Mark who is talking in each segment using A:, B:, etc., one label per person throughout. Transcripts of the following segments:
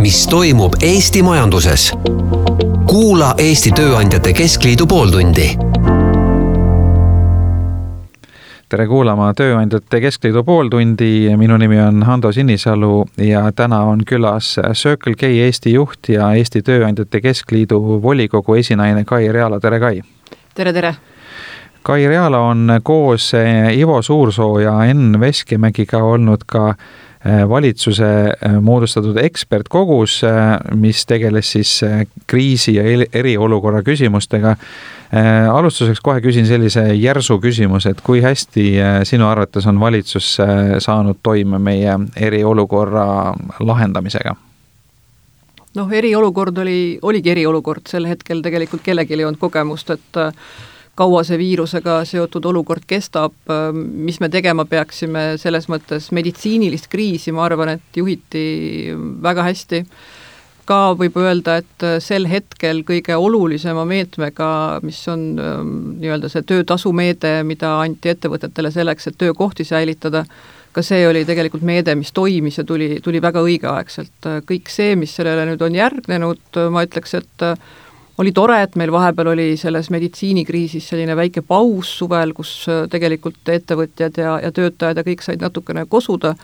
A: mis toimub Eesti majanduses. Kuula Eesti Tööandjate Keskliidu pooltundi.
B: Tere kuulama Tööandjate Keskliidu pooltundi. Minu nimi on Hando Sinisalu ja täna on külas Circle K Eesti juht ja Eesti Tööandjate Keskliidu volikogu esinaine Kai Realo. Tere, Kai!
C: Tere!
B: Kai Realo on koos Ivo Suursoo ja Enn Veskimägiga olnud ka valitsuse moodustatud ekspertkogus, mis tegeles siis kriisi ja eriolukorra küsimustega. Alustuseks kohe küsin sellise järsu küsimus, et kui hästi sinu arvates on valitsus saanud toime meie eriolukorra lahendamisega?
C: Eriolukord oligi eriolukord. Sel hetkel tegelikult kellelgi ei olnud kogemust, et kaua see viirusega seotud olukord kestab, mis me tegema peaksime, selles mõttes meditsiinilist kriisi, ma arvan, et juhiti väga hästi. Ka võib öelda, et sel hetkel kõige olulisema meetmega, mis on nii-öelda see töötasumeede, mida anti ettevõtetele selleks, et töökohti säilitada, ka see oli tegelikult meede, mis toimis ja tuli väga õigeaegselt. Kõik see, mis sellele nüüd on järgnenud, ma ütleks, et oli tore, et meil vahepeal oli selles meditsiinikriisis selline väike paus suvel, kus tegelikult ettevõtjad ja töötajad ja kõik said natukene kosuda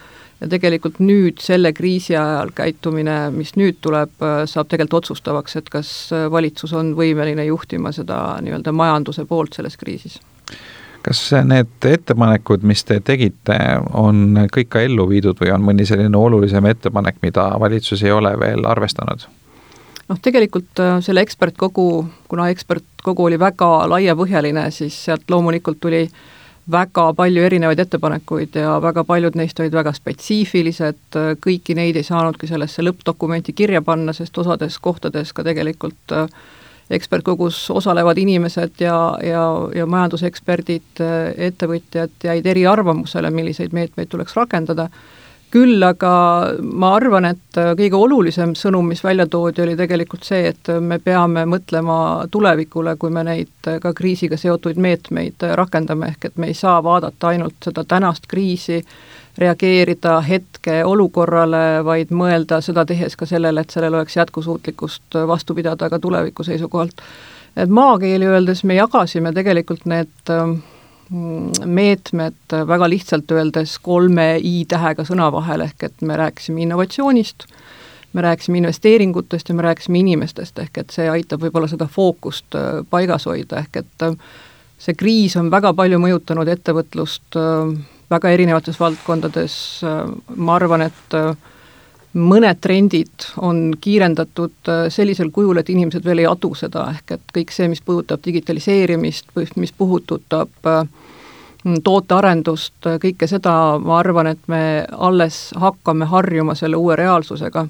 C: ja tegelikult nüüd selle kriisi ajal käitumine, mis nüüd tuleb, saab tegelikult otsustavaks, et kas valitsus on võimeline juhtima seda nii-öelda majanduse poolt selles kriisis.
B: Kas need ettepanekud, mis te tegite, on kõik ka ellu viidud või on mõni selline olulisem ettepanek, mida valitsus ei ole veel arvestanud?
C: Tegelikult selle ekspertkogu, kuna ekspertkogu oli väga laiapõhjaline, siis sealt loomulikult tuli väga palju erinevaid ettepanekuid ja väga paljud neist olid väga spetsiifilised, kõiki neid ei saanudki sellesse lõppdokumenti kirja panna, sest osades kohtades ka tegelikult ekspertkogus osalevad inimesed ja majanduseksperdid, ettevõtjad jäid eri arvamusele, milliseid meetmeid tuleks rakendada. Küll aga ma arvan, et kõige olulisem sõnum, mis välja toodi, oli tegelikult see, et me peame mõtlema tulevikule, kui me neid ka kriisiga seotuid meetmeid rakendame, ehk et me ei saa vaadata ainult seda tänast kriisi, reageerida hetke olukorrale, vaid mõelda seda tehes ka sellele, et sellel oleks jätkusuutlikkust vastu pidada ka tuleviku seisukohalt. Et maakeeli öeldes me jagasime tegelikult need meetmed väga lihtsalt öeldes 3 I-tähega sõna vahel, ehk et me rääkisime innovatsioonist, me rääkisime investeeringutest ja me rääkisime inimestest, ehk et see aitab võib-olla seda fookust paigas hoida, ehk et see kriis on väga palju mõjutanud ettevõtlust väga erinevates valdkondades. Ma arvan, et mõned trendid on kiirendatud sellisel kujul, et inimesed veel ei adu seda, ehk et kõik see, mis puudutab digitaliseerimist, mis puudutab tootearendust, kõike seda, ma arvan, et me alles hakkame harjuma selle uue reaalsusega.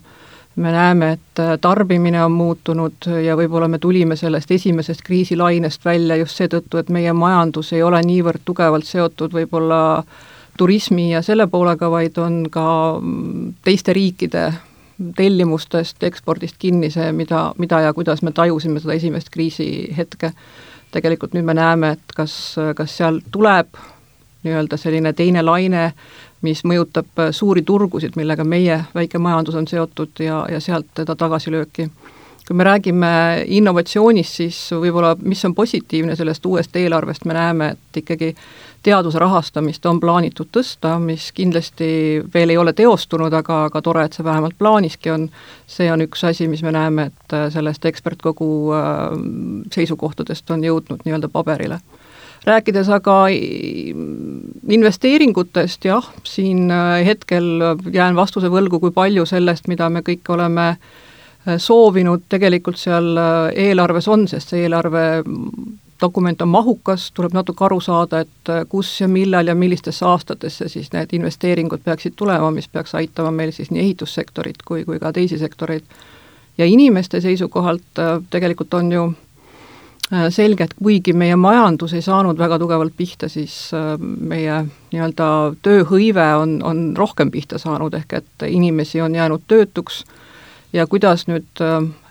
C: Me näeme, et tarbimine on muutunud ja võib-olla me tulime sellest esimesest kriisilainest välja just seetõttu, et meie majandus ei ole niivõrd tugevalt seotud võib-olla turismi ja selle poolega, vaid on ka teiste riikide tellimustest, ekspordist kinni see, mida ja kuidas me tajusime seda esimest kriisi hetke. Tegelikult nüüd me näeme, et kas seal tuleb nii-öelda selline teine laine, mis mõjutab suuri turgusid, millega meie väike majandus on seotud ja sealt teda tagasilööki. Kui me räägime innovatsioonist, siis võib-olla, mis on positiivne sellest uuest eelarvest, me näeme, et ikkagi teaduse rahastamist on plaanitud tõsta, mis kindlasti veel ei ole teostunud, aga tore, et see vähemalt plaaniski on. See on üks asi, mis me näeme, et sellest ekspertkogu seisukohtadest on jõudnud nii-öelda paberile. Rääkides aga investeeringutest, jah, siin hetkel jään vastuse võlgu, kui palju sellest, mida me kõik oleme soovinud, tegelikult seal eelarves on, sest see eelarve dokument on mahukas, tuleb natuke aru saada, et kus ja millal ja millistesse aastatesse siis need investeeringud peaksid tulema, mis peaks aitama meil siis nii ehitussektorit kui ka teisi sektoreid. Ja inimeste seisukohalt tegelikult on ju selge, et kuigi meie majandus ei saanud väga tugevalt pihta, siis meie nii-öelda tööhõive on rohkem pihta saanud, ehk et inimesi on jäänud töötuks ja kuidas nüüd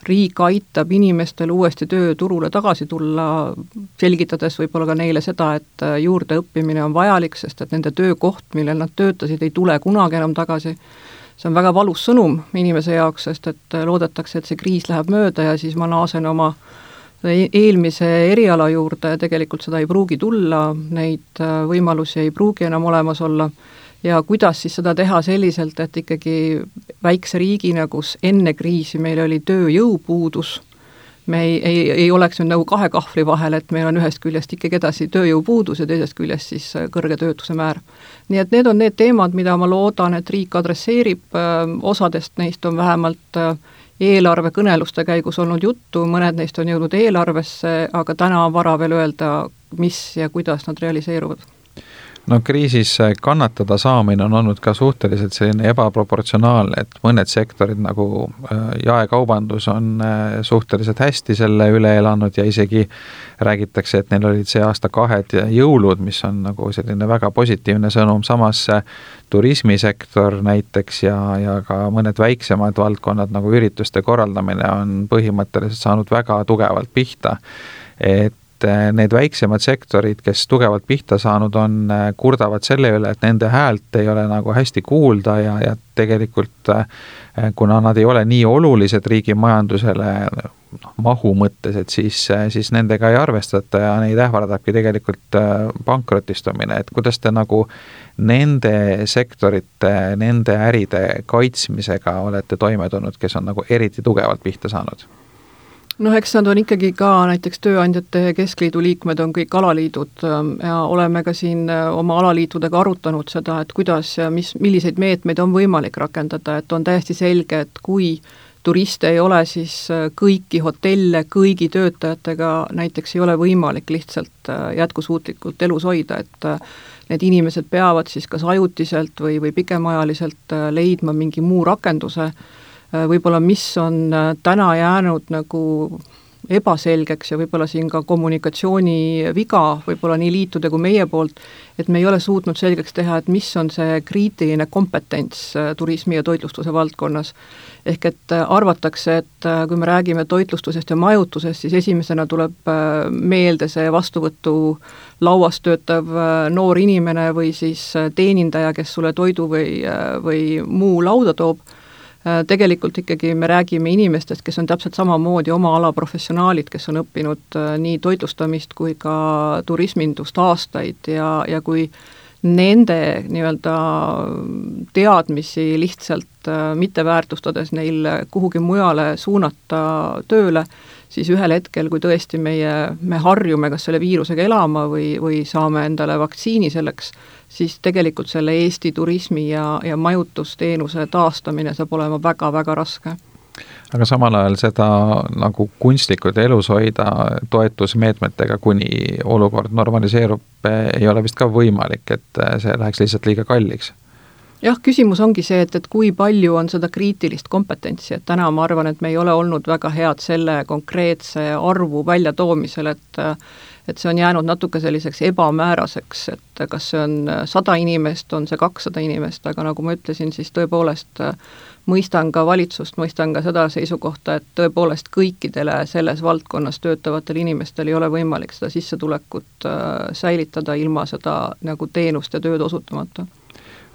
C: riik aitab inimestel uuesti tööturule tagasi tulla, selgitades võib-olla ka neile seda, et juurdeõppimine on vajalik, sest et nende töökoht, millel nad töötasid, ei tule kunagi enam tagasi. see on väga valus sõnum inimese jaoks, sest et loodetakse, et see kriis läheb mööda ja siis ma naasen oma eelmise eriala juurde ja tegelikult seda ei pruugi tulla, neid võimalusi ei pruugi enam olemas olla ja kuidas siis seda teha selliselt, et ikkagi väikse riigina, kus enne kriisi meil oli tööjõupuudus, me ei oleks nüüd nagu kahe kahvli vahel, et meil on ühest küljest ikkagi edasi tööjõupuudus ja teisest küljest siis kõrge töötuse määr. Nii et need on need teemad, mida ma loodan, et riik adresseerib, osadest neist on vähemalt eelarvekõneluste käigus olnud juttu, mõned neist on jõudnud eelarvesse, aga täna on vara veel öelda, mis ja kuidas nad realiseeruvad.
B: No kriisis kannatada saamine on olnud ka suhteliselt selline ebaproportsionaalne, et mõned sektorid nagu jaekaubandus on suhteliselt hästi selle üle elanud ja isegi räägitakse, et neil olid see aasta 2 jõulud, mis on nagu selline väga positiivne sõnum, samas turismisektor näiteks ja ka mõned väiksemad valdkonnad nagu ürituste korraldamine on põhimõtteliselt saanud väga tugevalt pihta, et need väiksemad sektorid, kes tugevalt pihta saanud on, kurdavad selle üle, et nende häält ei ole nagu hästi kuulda ja tegelikult kuna nad ei ole nii olulised riigi majandusele mahu mõttes, et siis nendega ei arvestata ja neid ähvardabki tegelikult pankrotistumine, et kuidas te nagu nende sektorite, nende äride kaitsmisega olete toime tulnud, kes on nagu eriti tugevalt pihta saanud?
C: Eks nad on ikkagi ka näiteks Tööandjate Keskliidu liikmed on kõik alaliidud ja oleme ka siin oma alaliitudega arutanud seda, et kuidas ja milliseid meetmeid on võimalik rakendada, et on täiesti selge, et kui turiste ei ole, siis kõiki hotelle, kõigi töötajatega näiteks ei ole võimalik lihtsalt jätkusuutlikult elus hoida, et need inimesed peavad siis kas ajutiselt või pikemaajaliselt leidma mingi muu rakenduse, võib-olla mis on täna jäänud nagu ebaselgeks ja võib-olla siin ka kommunikatsiooni viga, võib-olla nii liitude kui meie poolt, et me ei ole suutnud selgeks teha, et mis on see kriitiline kompetents turismi ja toitlustuse valdkonnas. Ehk et arvatakse, et kui me räägime toitlustusest ja majutusest, siis esimesena tuleb meelde see vastuvõtu lauas töötav noor inimene või siis teenindaja, kes sulle toidu või muu lauda toob. Tegelikult ikkagi me räägime inimestest, kes on täpselt samamoodi oma ala professionaalid, kes on õppinud nii toitlustamist kui ka turismindust aastaid ja kui nende nii-öelda teadmisi lihtsalt mitte väärtustades neil kuhugi mujale suunata tööle, siis ühel hetkel, kui tõesti me harjume kas selle viirusega elama või saame endale vaktsiini selleks, siis tegelikult selle Eesti turismi ja majutusteenuse taastamine saab olema väga-väga raske.
B: Aga samal ajal seda nagu kunstlikult elus hoida toetusmeetmetega, kuni olukord normaliseerub, ei ole vist ka võimalik, et see läheks lihtsalt liiga kalliks.
C: Jah, küsimus ongi see, et kui palju on seda kriitilist kompetentsi, et täna ma arvan, et me ei ole olnud väga head selle konkreetse arvu väljatoomisel, et see on jäänud natuke selliseks ebamääraseks, et kas see on 100 inimest, on see 200 inimest, aga nagu ma ütlesin, siis tõepoolest mõistan ka valitsust, mõistan ka seda seisukohta, et tõepoolest kõikidele selles valdkonnas töötavatel inimestel ei ole võimalik seda sissetulekut säilitada ilma seda nagu teenust ja tööd osutamata.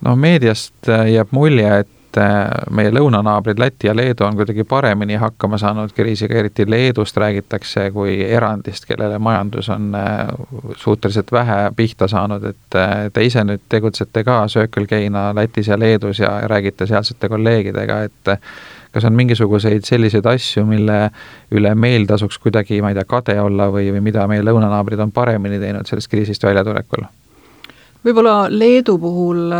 B: No meediast jääb mulje, et meie lõunanaabrid Läti ja Leedu on kuidagi paremini hakkama saanud kriisiga, eriti Leedust räägitakse kui erandist, kellele majandus on suhteliselt vähe pihta saanud, et te ise nüüd tegutsete ka Circle K-na Lätis ja Leedus ja räägite sealsete kolleegidega, et kas on mingisuguseid selliseid asju, mille üle meil tasuks kuidagi, ma ei tea, kade olla või mida meie lõunanaabrid on paremini teinud sellest kriisist väljatulekul?
C: Võib-olla Leedu puhul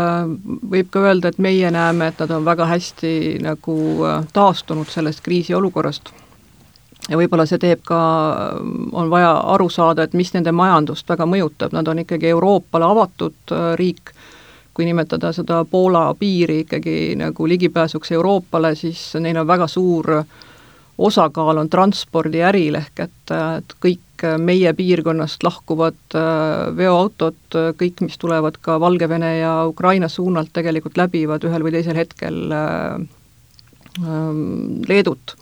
C: võib ka öelda, et meie näeme, et nad on väga hästi nagu taastunud sellest kriisiolukorrast. Ja võib-olla see teeb ka, on vaja aru saada, et mis nende majandust väga mõjutab. Nad on ikkagi Euroopale avatud riik, kui nimetada seda Poola piiri ikkagi nagu ligipääsuks Euroopale, siis neil on väga suur osakaal on transpordiäril ehk et kõik meie piirkonnast lahkuvad veoautod, kõik, mis tulevad ka Valgevene ja Ukraina suunalt tegelikult läbivad ühel või teisel hetkel Leedut.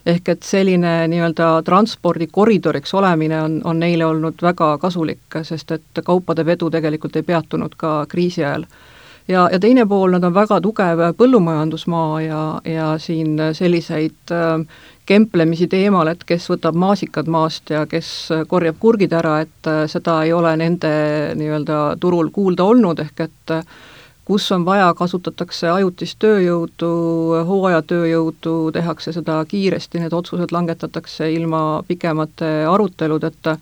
C: Ehk et selline nii-öelda transpordikoridoriks olemine on neile olnud väga kasulik, sest et kaupade vedu tegelikult ei peatunud ka kriisi ajal. ja teine pool, nad on väga tugev põllumajandusmaa ja siin selliseid kemplemisi teemal, et kes võtab maasikad maast ja kes korjab kurgid ära, et seda ei ole nende nii-öelda turul kuulda olnud, ehk et kus on vaja, kasutatakse ajutist tööjõudu, hooajatööjõudu, tehakse seda kiiresti, need otsused langetatakse ilma pikemate aruteludeta,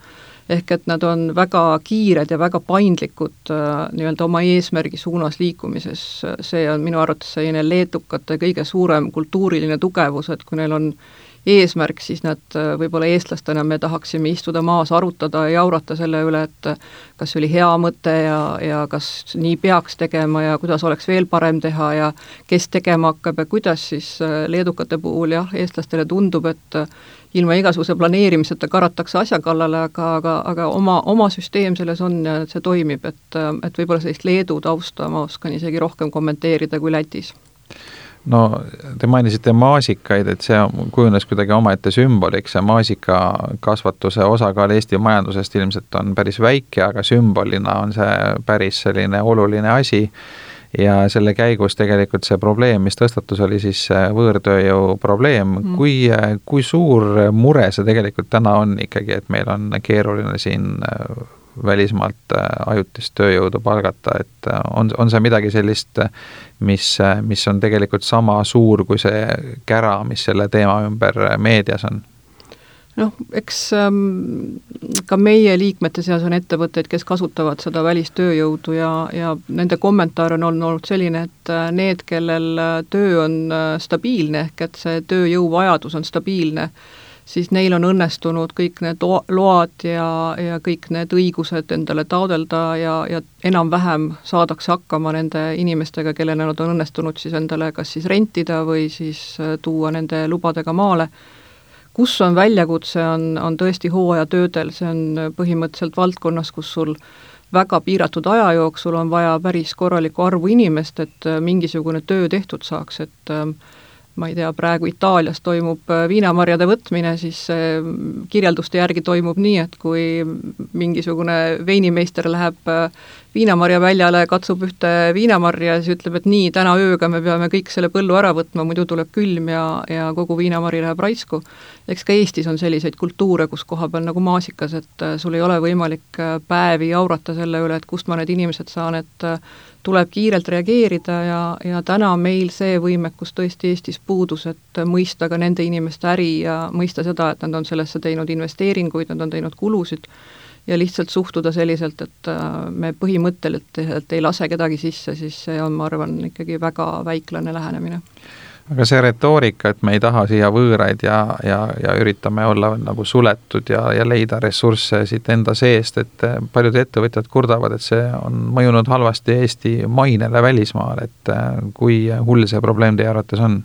C: ehk et nad on väga kiired ja väga paindlikud nii-öelda oma eesmärgi suunas liikumises. See on minu arvates selline leedukate kõige suurem kultuuriline tugevus, et kui neil on eesmärk, siis nad võib-olla eestlastena me tahaksime istuda maas, arutada ja jaurata selle üle, et kas see oli hea mõte ja kas nii peaks tegema ja kuidas oleks veel parem teha ja kes tegema hakkab ja kuidas, siis leedukate puhul jah, eestlastele tundub, et ilma igasuguse planeerimiseta karatakse asja kallale, aga oma süsteem selles on ja see toimib, et võib-olla sellist Leedu tausta ma oskan isegi rohkem kommenteerida kui Lätis.
B: No te mainisite maasikaid, et see kujunes kuidagi omaette sümboliks ja maasikakasvatuse osakaal Eesti majandusest ilmselt on päris väike, aga sümbolina on see päris selline oluline asi ja selle käigus tegelikult see probleem, mis tõstatus, oli siis võõrtööjõu probleem. Kui suur mure see tegelikult täna on ikkagi, et meil on keeruline siin välismaalt ajutist tööjõudu palgata, et on see midagi sellist, mis on tegelikult sama suur kui see kära, mis selle teema ümber meedias on?
C: Noh, eks ka meie liikmete seas on ettevõtteid, kes kasutavad seda välistööjõudu ja nende kommentaar on olnud selline, et need, kellel töö on stabiilne, ehk et see tööjõuvajadus on stabiilne, siis neil on õnnestunud kõik need load ja kõik need õigused endale taodelda ja enam-vähem saadakse hakkama nende inimestega, kellele nad on õnnestunud siis endale kas siis rentida või siis tuua nende lubadega maale. Kus on väljakutse, on tõesti hooajatöödel, see on põhimõtteliselt valdkonnas, kus sul väga piiratud aja jooksul on vaja päris korralikku arvu inimest, et mingisugune töö tehtud saaks, et ma ei tea, praegu Itaalias toimub viinamarjade võtmine, siis kirjelduste järgi toimub nii, et kui mingisugune veinimeister läheb viinamarja väljale, katsub ühte viinamarja ja siis ütleb, et nii, täna ööga me peame kõik selle põllu ära võtma, muidu tuleb külm ja kogu viinamari läheb raisku. Eks ka Eestis on selliseid kultuure, kus koha peal nagu maasikas, et sul ei ole võimalik päevi jaurata selle üle, et kust ma need inimesed saan, et tuleb kiirelt reageerida ja täna meil see võimekus tõesti Eestis puudus, et mõista ka nende inimeste äri ja mõista seda, et nad on sellesse teinud investeeringuid, nad on teinud kulusid ja lihtsalt suhtuda selliselt, et me põhimõtteliselt ei lase kedagi sisse, siis see on, ma arvan, ikkagi väga väiklane lähenemine.
B: Aga see retoorika, et me ei taha siia võõraid ja üritame olla nagu suletud ja leida ressursse siit enda seest, et paljud ettevõtjad kurdavad, et see on mõjunud halvasti Eesti mainele välismaal, et kui hull see probleem teie arvates on?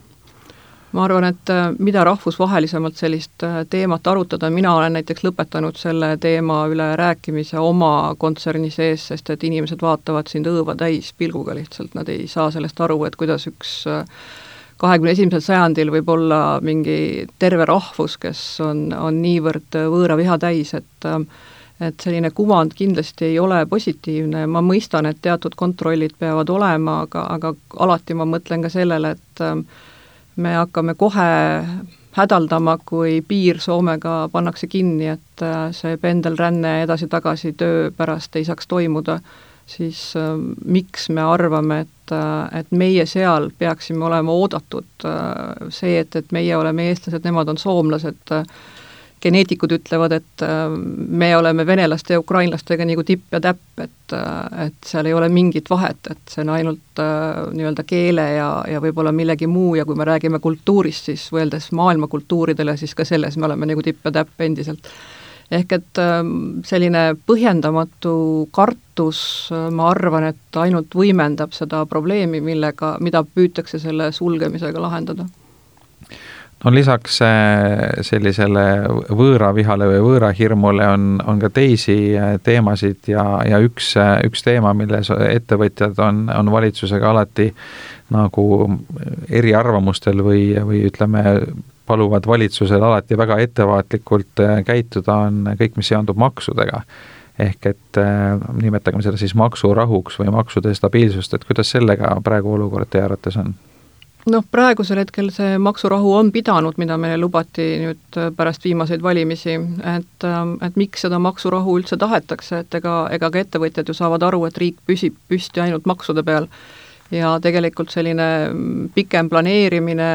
C: Ma arvan, et mida rahvusvahelisemalt sellist teemat arutada, mina olen näiteks lõpetanud selle teema üle rääkimise oma kontserni sees, sest et inimesed vaatavad sind õõva täis pilguga lihtsalt, nad ei saa sellest aru, et kuidas üks 21. sajandil võib olla mingi terve rahvus, kes on niivõrd võõra viha täis, et selline kuvand kindlasti ei ole positiivne. Ma mõistan, et teatud kontrollid peavad olema, aga alati ma mõtlen ka sellele, et me hakkame kohe hädaldama, kui piir Soomega pannakse kinni, et see pendelränne edasi-tagasi töö pärast ei saaks toimuda, siis miks me arvame, et meie seal peaksime olema oodatud see, et meie oleme eestlased, nemad on soomlased, geneetikud ütlevad, et me oleme venelaste ja ukrainlastega nagu tipp ja täpp, et seal ei ole mingit vahet, et see on ainult nii-öelda keele ja võib-olla millegi muu ja kui me räägime kultuurist, siis võeldes maailma kultuuridele, siis ka selles me oleme nagu tipp ja täpp endiselt. Ehk et selline põhjendamatu kartus, ma arvan, et ainult võimendab seda probleemi, mida püütakse selle sulgemisega lahendada.
B: No lisaks sellisele võõravihale või võõrahirmule on ka teisi teemasid ja üks teema, milles ettevõtjad on valitsusega alati nagu eriarvamustel või ütleme, paluvad valitsusel alati väga ettevaatlikult käituda, on kõik, mis seondub maksudega. ehk et nimetagem seda siis maksurahuks või maksude stabiilsust, et kuidas sellega praegu olukord teie arvates on?
C: Praegusel hetkel see maksurahu on pidanud, mida meile lubati nüüd pärast viimaseid valimisi, et miks seda maksurahu üldse tahetakse, et ega ka ettevõtjad ju saavad aru, et riik püsib püsti ainult maksude peal ja tegelikult selline pikem planeerimine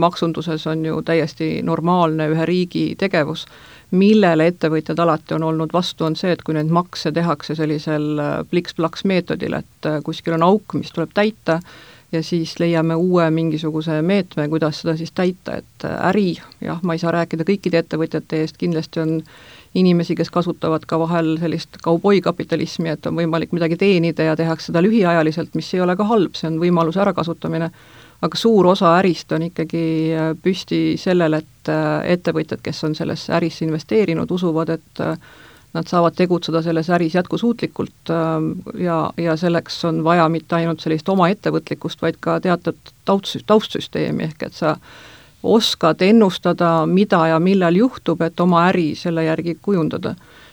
C: maksunduses on ju täiesti normaalne ühe riigi tegevus, millele ettevõtjad alati on olnud vastu, on see, et kui neid makse tehakse sellisel pliks-plaks meetodil, et kuskil on auk, mis tuleb täita, ja siis leiame uue mingisuguse meetme, kuidas seda siis täita, et äri, ma ei saa rääkida kõikide ettevõtjate eest, kindlasti on inimesi, kes kasutavad ka vahel sellist kauboikapitalismi, et on võimalik midagi teenida ja tehakse seda lühiajaliselt, mis ei ole ka halb, see on võimaluse ärakasutamine, aga suur osa ärist on ikkagi püsti sellele, et ettevõtjad, kes on sellesse ärisse investeerinud, usuvad, et nad saavad tegutseda selles äris jätkusuutlikult ja selleks on vaja mitte ainult sellist oma ettevõtlikkust, vaid ka teatud taustsüsteemi, ehk et sa oskad ennustada, mida ja millal juhtub, et oma äri selle järgi kujundada.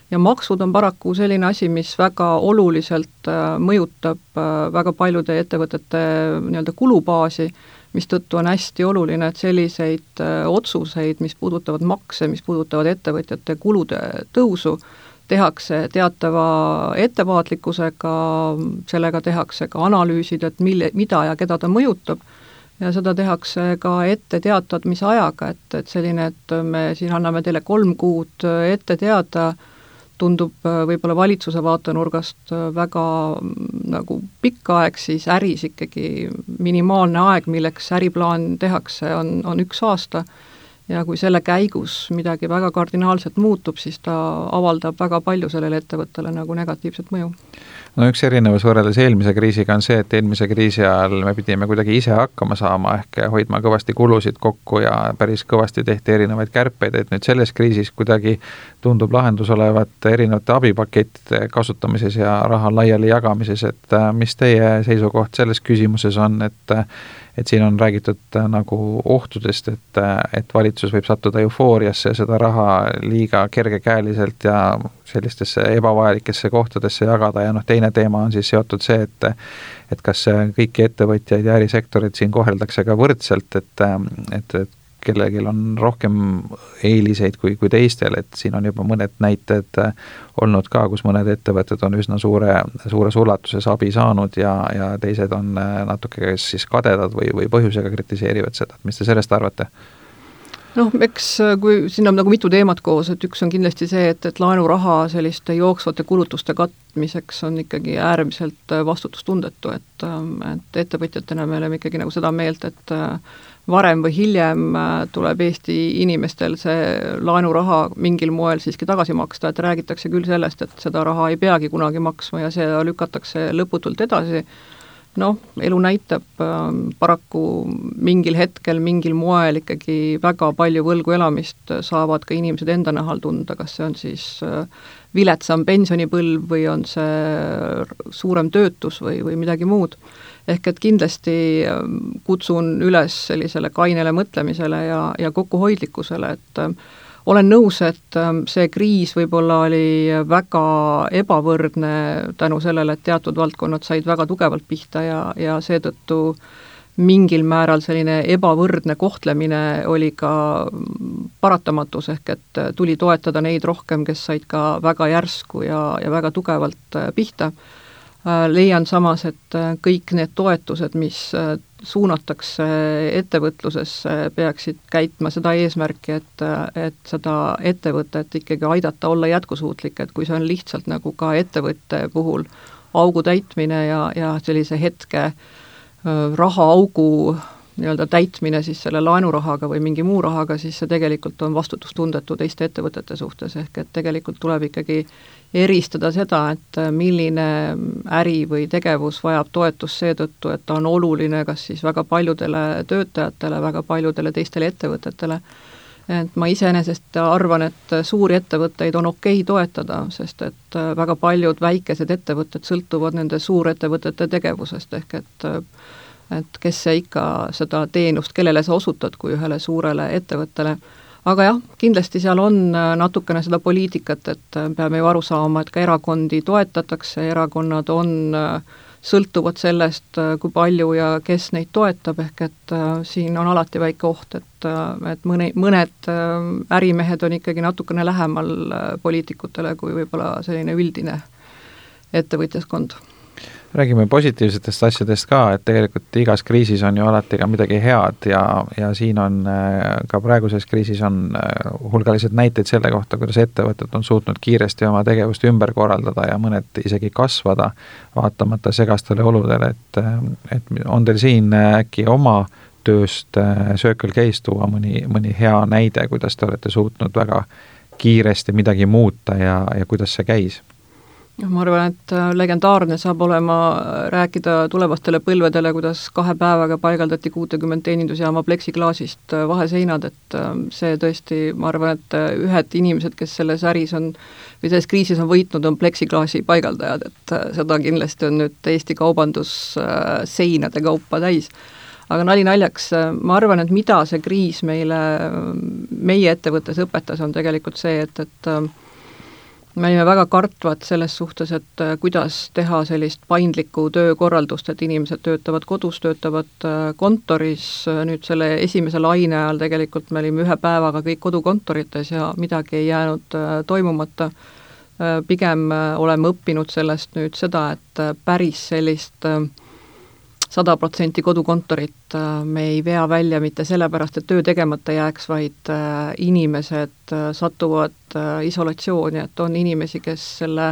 C: Ja maksud on paraku selline asi, mis väga oluliselt mõjutab väga paljude ettevõtete nii-öelda kulubaasi, mistõttu on hästi oluline, et selliseid otsuseid, mis puudutavad makse, mis puudutavad ettevõtjate kulude tõusu, tehakse teatava ettevaatlikkusega, sellega tehakse ka analüüsid, et mida ja keda ta mõjutab, ja seda tehakse ka ette teatamise ajaga, et selline, et me siin anname teile 3 kuud ette teada, tundub võib-olla valitsuse vaatenurgast väga nagu pikk aeg, siis äris ikkagi minimaalne aeg, milleks äriplaan tehakse, on 1 aasta, ja kui selle käigus midagi väga kardinaalselt muutub, siis ta avaldab väga palju sellele ettevõttele nagu negatiivset mõju.
B: Üks erinevus võrreldes eelmise kriisiga on see, et eelmise kriisi ajal me pidime kuidagi ise hakkama saama, ehk hoidma kõvasti kulusid kokku ja päris kõvasti tehti erinevaid kärpeid, et nüüd selles kriisis kuidagi tundub lahendus olevat erinevate abipakettide kasutamises ja raha laiali jagamises, et mis teie seisukoht selles küsimuses on, et siin on räägitud nagu ohtudest, et valitsus võib sattuda eufooriasse, seda raha liiga kergekäeliselt ja sellistesse ebavajalikesse kohtadesse jagada ja teine teema on siis seotud see, et kas kõiki ettevõtjaid ja ärisektorid siin koheldakse ka võrdselt, et kellelgi on rohkem eeliseid kui teistel, et siin on juba mõned näited olnud ka, kus mõned ettevõtted on üsna suures ulatuses abi saanud ja teised on natuke siis kadedad või põhjusega kritiseerivad seda, et mis te sellest arvate?
C: Eks kui siin on nagu mitu teemat koos, et üks on kindlasti see, et laenuraha selliste jooksvate kulutuste katmiseks on ikkagi äärmiselt vastutustundetu, et ettevõtjatena me oleme ikkagi nagu seda meelt, et varem või hiljem tuleb Eesti inimestel see laenuraha mingil moel siiski tagasi maksta, et räägitakse küll sellest, et seda raha ei peagi kunagi maksma ja seda lükatakse lõputult edasi. Elu näitab paraku mingil hetkel, mingil moel ikkagi väga palju võlgu elamist saavad ka inimesed enda nahal tunda, kas see on siis viletsam pensionipõlv või on see suurem töötus või midagi muud. Ehk et kindlasti kutsun üles sellisele kainele mõtlemisele ja kokkuhoidlikkusele, et olen nõus, et see kriis võib-olla oli väga ebavõrdne tänu sellele, et teatud valdkonnad said väga tugevalt pihta ja seetõttu mingil määral selline ebavõrdne kohtlemine oli ka paratamatus, ehk et tuli toetada neid rohkem, kes said ka väga järsku ja väga tugevalt pihta. Leian samas, et kõik need toetused, mis suunatakse ettevõtlusesse, peaksid käitma seda eesmärki, et seda ettevõtet ikkagi aidata olla jätkusuutlik, et kui see on lihtsalt nagu ka ettevõtte puhul augu täitmine ja sellise hetke rahaaugu nii-öelda täitmine siis selle laenurahaga või mingi muu rahaga, siis see tegelikult on vastutustundetu teiste ettevõtete suhtes, ehk et tegelikult tuleb ikkagi eristada seda, et milline äri või tegevus vajab toetust seetõttu, et ta on oluline kas siis väga paljudele töötajatele, väga paljudele teistele ettevõtetele. Et ma iseenesest arvan, et suuri ettevõtteid on okei toetada, sest et väga paljud väikesed ettevõtted sõltuvad nende suurettevõtete tegevusest, ehk et kes see ikka seda teenust, kellele sa osutad kui ühele suurele ettevõttele, aga jah, kindlasti seal on natukene seda poliitikat, et peame ju aru saama, et ka erakondi toetatakse, erakonnad on sõltuvad sellest, kui palju ja kes neid toetab, ehk et siin on alati väike oht, et mõned ärimehed on ikkagi natukene lähemal poliitikutele kui võib-olla selline üldine ettevõtjaskond.
B: Räägime positiivsetest asjadest ka, et tegelikult igas kriisis on ju alati ka midagi head ja siin on ka praeguses kriisis on hulgalised näiteid selle kohta, kuidas ettevõtted on suutnud kiiresti oma tegevust ümber korraldada ja mõned isegi kasvada, vaatamata segastele oludele, et on teil siin äkki oma tööst Circle K-st tuua mõni hea näide, kuidas te olete suutnud väga kiiresti midagi muuta ja kuidas see käis?
C: Ma arvan, et legendaarne saab olema rääkida tulevastele põlvedele, kuidas 2 päevaga paigaldati 60 teenindusjaama pleksiklaasist vaheseinad, et see tõesti, ma arvan, et ühed inimesed, kes selles äris on või selles kriisis on võitnud, on pleksiklaasi paigaldajad, et seda kindlasti on nüüd Eesti kaubandus seinade kaupa täis. Aga nali naljaks, ma arvan, et mida see kriis meie ettevõttes õpetas, on tegelikult see, et me olime väga kartvad selles suhtes, et kuidas teha sellist paindlikku töökorraldust, et inimesed töötavad kodus, töötavad kontoris, nüüd selle esimese laine ajal tegelikult me olime 1 päevaga kõik kodukontorites ja midagi ei jäänud toimumata. Pigem oleme õppinud sellest nüüd seda, et päris sellist 100% kodukontorit me ei vea välja mitte sellepärast, et töö tegemata jääks, vaid inimesed satuvad isolatsiooni, et on inimesi, kes selle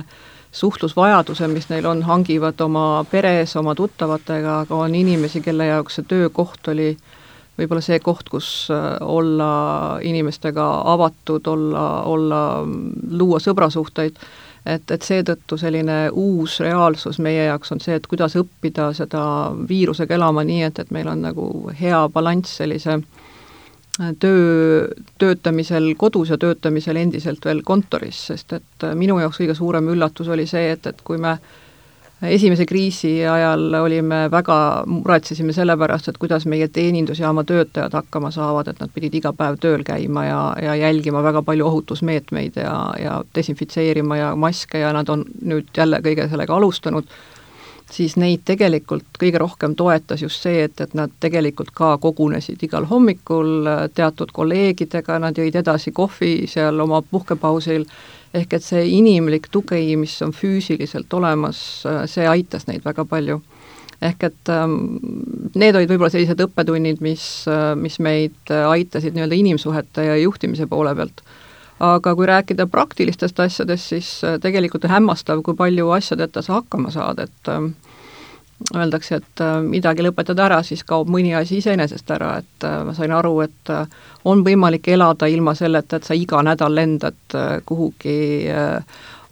C: suhtlusvajaduse, mis neil on, hangivad oma peres, oma tuttavatega, aga on inimesi, kelle jaoks see töökoht oli võib-olla see koht, kus olla inimestega avatud, luua sõbrasuhteid. Et seetõttu selline uus reaalsus meie jaoks on see, et kuidas õppida seda viirusega elama nii, et meil on nagu hea balanss sellise töötamisel kodus ja töötamisel endiselt veel kontoris, sest et minu jaoks kõige suurem üllatus oli see, et kui me esimese kriisi ajal muretsesime selle pärast, et kuidas meie teenindusjaama töötajad hakkama saavad, et nad pidid iga päev tööl käima ja jälgima väga palju ohutusmeetmeid ja desinfitseerima ja maske ja nad on nüüd jälle kõige sellega alustanud, siis neid tegelikult kõige rohkem toetas just see, et nad tegelikult ka kogunesid igal hommikul teatud kolleegidega, nad jõid edasi kohvi seal oma puhkepausil, ehk et see inimlik tugi, mis on füüsiliselt olemas, see aitas neid väga palju. Ehk et need olid võib-olla sellised õppetunnid, mis meid aitasid nii-öelda inimsuhete ja juhtimise poole pealt. Aga kui rääkida praktilistest asjadest, siis tegelikult on hämmastav, kui palju asjadeta sa hakkama saad, et öeldakse, et midagi lõpetada ära, siis kaob mõni asi iseenesest ära, et ma sain aru, et on võimalik elada ilma selleta, et sa iga nädal lendad kuhugi,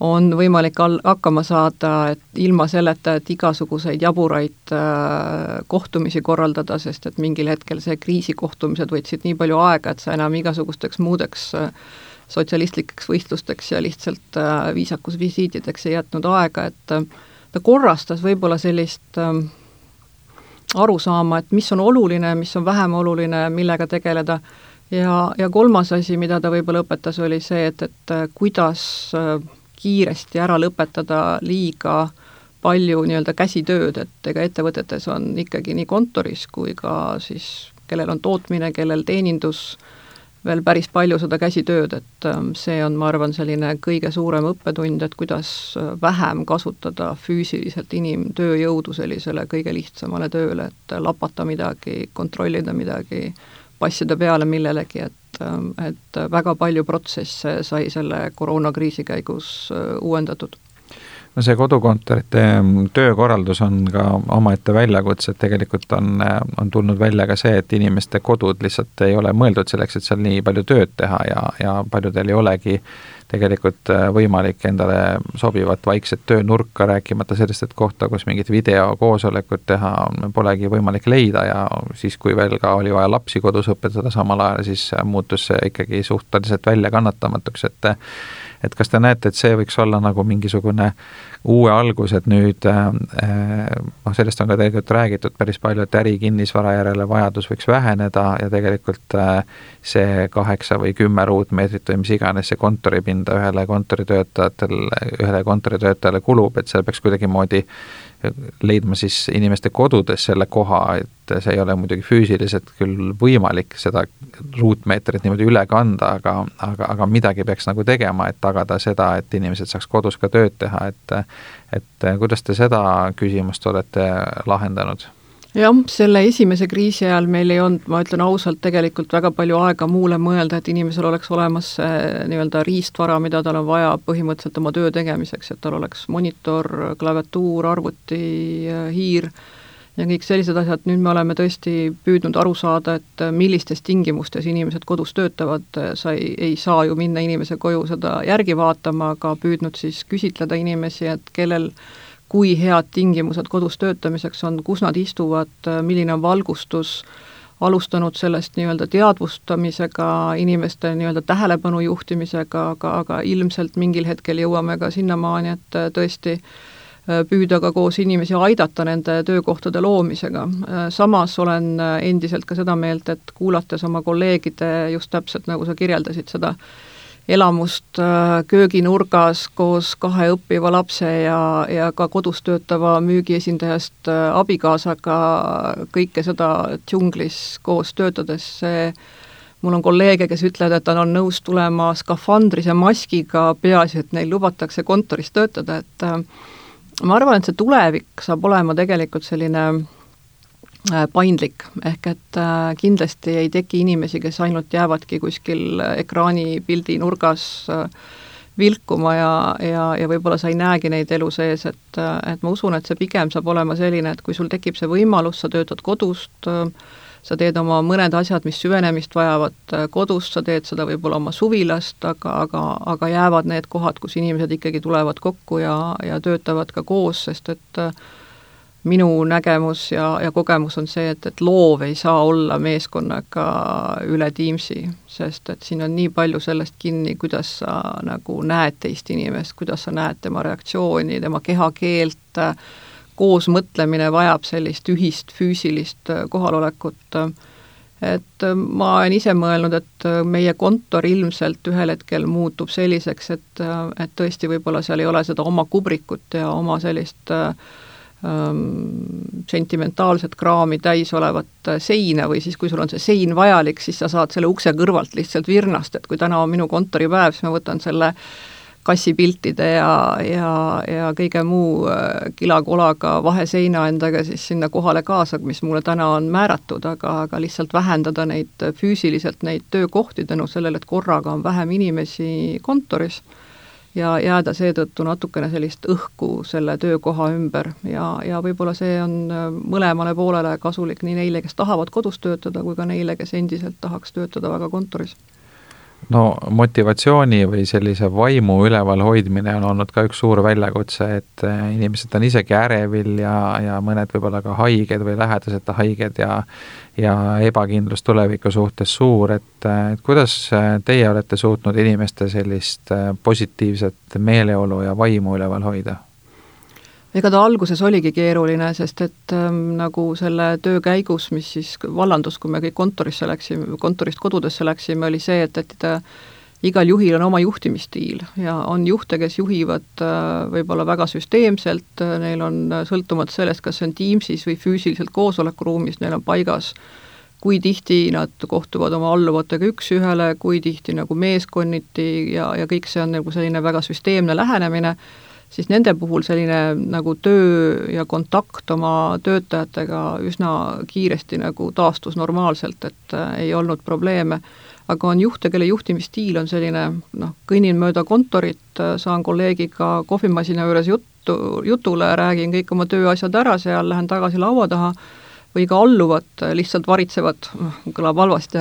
C: on võimalik hakkama saada, et ilma selleta, et igasuguseid jaburaid kohtumisi korraldada, sest et mingil hetkel see kriisikohtumised võtsid nii palju aega, et sa enam igasugusteks muudeks sotsialistlikeks võistlusteks ja lihtsalt viisakusvisiitideks ei jätnud aega, et ta korrastas võib-olla sellist arusaama, et mis on oluline, mis on vähem oluline, millega tegeleda ja kolmas asi, mida ta võib-olla õpetas, oli see, et kuidas kiiresti ära lõpetada liiga palju nii-öelda käsitööd, et ega ettevõtetes on ikkagi nii kontoris kui ka siis, kellel on tootmine, kellel teenindus, veel päris palju seda käsitööd, et see on, ma arvan, selline kõige suurem õppetund, et kuidas vähem kasutada füüsiliselt inimtööjõudu sellisele kõige lihtsamale tööle, et lapata midagi, kontrollida midagi, passida peale millelegi, et väga palju protsesse sai selle koroonakriisi käigus uuendatud.
B: No see kodukontorite töökorraldus on ka omaette väljakutse, et tegelikult on tulnud välja ka see, et inimeste kodud lihtsalt ei ole mõeldud selleks, et seal nii palju tööd teha ja paljudel ei olegi tegelikult võimalik endale sobivat vaikset töönurka, rääkimata sellest, et kohta, kus mingit videokoosolekut teha, polegi võimalik leida ja siis, kui veel ka oli vaja lapsi kodus õpetada samal ajal, siis muutus see ikkagi suhteliselt väljakannatamatuks, et kas te näete, et see võiks olla nagu mingisugune uue algus, et nüüd sellest on ka tegelikult räägitud päris palju, et ärikinnisvara järele vajadus võiks väheneda ja tegelikult see 8 või 10 ruutmeetrit või mis iganes see kontoripinda ühele kontoritöötajale kulub, et seal peaks kuidagimoodi leidma siis inimeste kodudes selle koha, et see ei ole muidugi füüsiliselt küll võimalik seda ruutmeetrit niimoodi üle kanda, aga midagi peaks nagu tegema, et tagada seda, et inimesed saaks kodus ka tööd teha, et kuidas te seda küsimust olete lahendanud?
C: Jah, selle esimese kriisi ajal meil ei olnud, ma ütlen ausalt, tegelikult väga palju aega muule mõelda, et inimesel oleks olemas nii-öelda riistvara, mida tal on vaja põhimõtteliselt oma töö tegemiseks, et tal oleks monitor, klaviatuur, arvuti, hiir ja kõik sellised asjad. Nüüd me oleme tõesti püüdnud aru saada, et millistes tingimustes inimesed kodus töötavad, sa ei saa ju minna inimese koju seda järgi vaatama, aga püüdnud siis küsitleda inimesi, et kellel kui head tingimused kodus töötamiseks on, kus nad istuvad, milline on valgustus, alustanud sellest nii-öelda teadvustamisega, inimeste nii-öelda tähelepanu juhtimisega, aga ilmselt mingil hetkel jõuame ka sinnamaani, et tõesti püüda ka koos inimesi aidata nende töökohtade loomisega. Samas olen endiselt ka seda meelt, et kuulates oma kolleegide just täpselt nagu sa kirjeldasid seda elamust kööginurgas koos 2 õppiva lapse ja ka kodus töötava müügiesindajast abikaasaga kõike seda džunglis koos töötades. Mul on kolleege, kes ütlevad, et on nõus tulema skafandris ja maskiga, peaasi, et neil lubatakse kontoris töötada, et ma arvan, et see tulevik saab olema tegelikult selline paindlik, ehk et kindlasti ei teki inimesi, kes ainult jäävadki kuskil ekraani pildi nurgas vilkuma ja võib-olla sa ei näegi neid elu sees, et ma usun, et see pigem saab olema selline, et kui sul tekib see võimalus, sa töötad kodust, sa teed oma mõned asjad, mis süvenemist vajavad kodust, sa teed seda võib-olla oma suvilast, aga jäävad need kohad, kus inimesed ikkagi tulevad kokku ja töötavad ka koos, sest et minu nägemus ja kogemus on see, et loov ei saa olla meeskonnaga üle Teamsi, sest et siin on nii palju sellest kinni, kuidas sa nagu näed teist inimest, kuidas sa näed tema reaktsiooni, tema kehakeelt, koos mõtlemine vajab sellist ühist füüsilist kohalolekut. Et ma olen ise mõelnud, et meie kontor ilmselt ühel hetkel muutub selliseks, et tõesti võib-olla seal ei ole seda oma kubrikut ja oma sellist sentimentaalset kraami täis olevat seina või siis, kui sul on see sein vajalik, siis sa saad selle ukse kõrvalt lihtsalt virnast, et kui täna on minu kontoripäev, siis ma võtan selle kassipiltide ja kõige muu kilakolaga vaheseina endaga siis sinna kohale kaasa, mis mulle täna on määratud, aga lihtsalt vähendada neid füüsiliselt neid töökohti tänu sellele, et korraga on vähem inimesi kontoris ja jääda seetõttu natukene sellist õhku selle töökoha ümber ja võib-olla see on mõlemale poolele kasulik nii neile, kes tahavad kodus töötada, kui ka neile, kes endiselt tahaks töötada väga kontoris.
B: No motivatsiooni või sellise vaimu üleval hoidmine on olnud ka üks suur väljakutse, et inimesed on isegi ärevil ja mõned võib-olla ka haiged või lähedased haiged ja ebakindlus tuleviku suhtes suur, et kuidas teie olete suutnud inimeste sellist positiivset meeleolu ja vaimu üleval hoida?
C: Ega ta alguses oligi keeruline, sest et nagu selle töö käigus, mis siis vallandus, kui me kõik kontorist kodudesse läksime, oli see, et igal juhil on oma juhtimisstiil ja on juhte, kes juhivad võib-olla väga süsteemselt, neil on sõltumata sellest, kas see on Teamsis või füüsiliselt koosolekuruumis, neil on paigas, kui tihti nad kohtuvad oma alluvatega üks-ühele, kui tihti nagu meeskonniti ja kõik see on nagu selline väga süsteemne lähenemine, siis nende puhul selline nagu töö ja kontakt oma töötajatega üsna kiiresti nagu taastus normaalselt, et ei olnud probleeme. Aga on juhte, kelle juhtimisstiil on selline, kõnnin mööda kontorit, saan kolleegiga kohvimasina juures jutule, räägin kõik oma tööasjad ära seal, lähen tagasi laua taha, või ka alluvad, lihtsalt varitsevad, kõlab halvasti,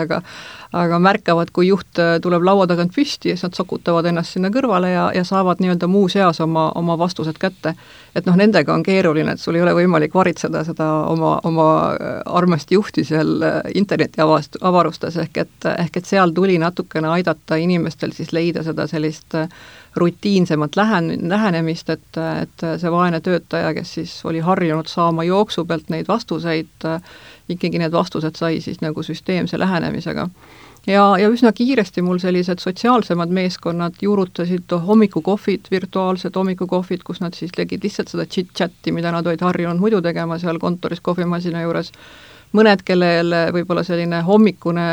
C: aga märkavad, kui juht tuleb laua tagant püsti ja siis nad sokutavad ennast sinna kõrvale ja saavad nii-öelda muu seas oma vastused kätte. Et nendega on keeruline, et sul ei ole võimalik varitseda seda oma armast juhti seal interneti avarustes, ehk et seal tuli natukene aidata inimestel siis leida seda sellist rutiinsemat lähenemist, et see vaene töötaja, kes siis oli harjunud saama jooksu pealt neid vastuseid, ikkagi need vastused sai siis nagu süsteemse lähenemisega. Ja üsna kiiresti mul sellised sotsiaalsemad meeskonnad juurutasid hommikukohvid, virtuaalsed hommikukohvid, kus nad siis tegid lihtsalt seda chit-chatti, mida nad olid harjunud muidu tegema seal kontoris kohvimasina juures. Mõned, kellel võib-olla selline hommikune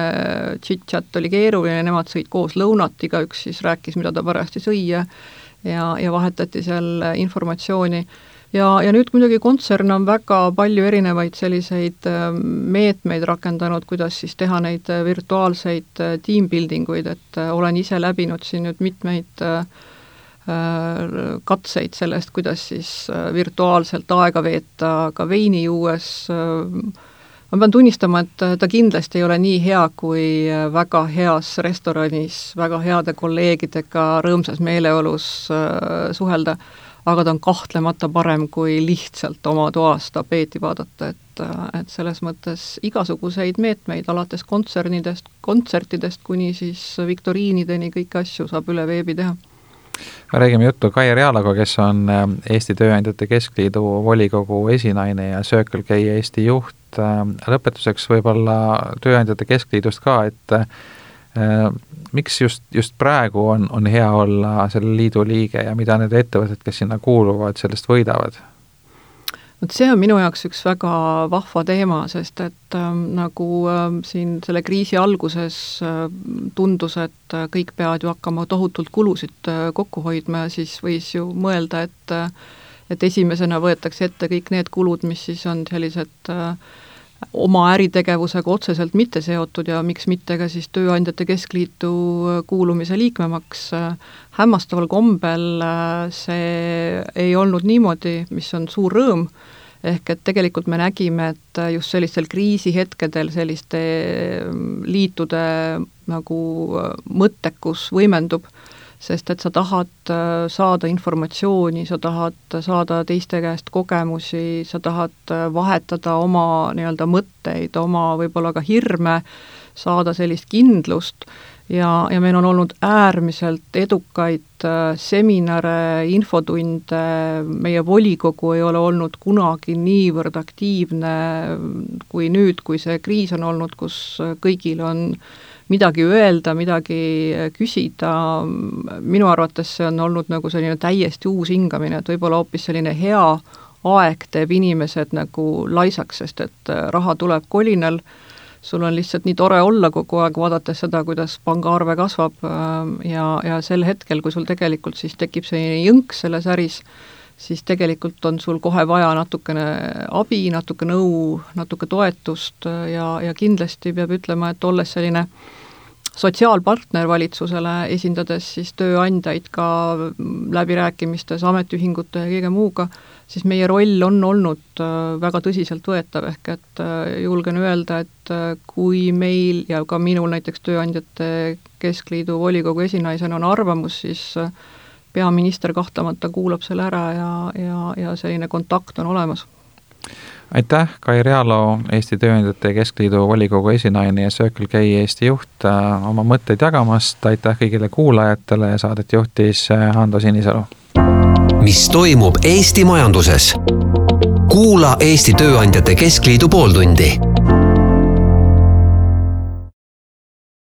C: chit-chat oli keeruline, nemad sõid koos lõunat, igaüks siis rääkis, mida ta parajasti sõi ja vahetati seal informatsiooni. Ja nüüd muidugi kontsern on väga palju erinevaid selliseid meetmeid rakendanud, kuidas siis teha neid virtuaalseid teambuildinguid, et olen ise läbinud siin nüüd mitmeid katseid sellest, kuidas siis virtuaalselt aega veeta ka veini juues. Ma pean tunnistama, et ta kindlasti ei ole nii hea kui väga heas restoranis, väga heade kolleegidega rõõmsas meeleolus suhelda, aga ta on kahtlemata parem kui lihtsalt oma toas tapeeti vaadata, et selles mõttes igasuguseid meetmeid alates kontsertidest kuni siis viktoriinideni kõiki asju saab üle veebi teha.
B: Räägime juttu Kai Realaga, kes on Eesti Tööandjate Keskliidu volikogu esinaine ja Circle K Eesti juht. Lõpetuseks võib-olla Tööandjate Keskliidust ka, et miks just praegu on hea olla selle liidu liige ja mida need ettevõtted, kes sinna kuuluvad, sellest võidavad?
C: See on minu jaoks üks väga vahva teema, sest et nagu siin selle kriisi alguses tundus, et kõik peavad ju hakkama tohutult kulusid kokku hoidma ja siis võis ju mõelda, et esimesena võetakse ette kõik need kulud, mis siis on sellised oma äritegevusega otseselt mitte seotud ja miks mitte ka siis Tööandjate Keskliitu kuulumise liikmemaks. Hämmastaval kombel see ei olnud niimoodi, mis on suur rõõm, ehk et tegelikult me nägime, et just sellistel kriisihetkedel selliste liitude nagu mõttekus võimendub, sest et sa tahad saada informatsiooni, sa tahad saada teiste käest kogemusi, sa tahad vahetada oma nii-öelda mõtteid, oma võib-olla ka hirme, saada sellist kindlust ja meil on olnud äärmiselt edukaid seminare, infotunde, meie volikogu ei ole olnud kunagi niivõrd aktiivne kui nüüd, kui see kriis on olnud, kus kõigil on midagi öelda, midagi küsida. Minu arvates see on olnud nagu selline täiesti uus hingamine, et võib-olla hoopis selline hea aeg teeb inimesed nagu laisaks, sest et raha tuleb kolinal, sul on lihtsalt nii tore olla kogu aeg, vaadates seda, kuidas pangaarve kasvab ja sel hetkel, kui sul tegelikult siis tekib selline jõnk selles äris, siis tegelikult on sul kohe vaja natukene abi, natuke nõu, natuke toetust ja kindlasti peab ütlema, et olles selline sotsiaalpartner valitsusele, esindades siis tööandjaid ka läbirääkimistes ametiühingute ja kõige muuga, siis meie roll on olnud väga tõsiselt võetav, ehk et julgen öelda, et kui meil ja ka minul näiteks Tööandjate Keskliidu volikogu esinaisena on arvamus, siis peaminister kahtlemata kuulab selle ära ja selline kontakt on olemas.
B: Aitäh, Kai Realo, Eesti Tööandjate Keskliidu volikogu esinaine ja Circle K Eesti juht oma mõtteid jagamast. Aitäh kõigile kuulajatele ja saadet juhtis Hando Sinisalu.
A: Mis toimub Eesti majanduses? Kuula Eesti Tööandjate Keskliidu pooltundi.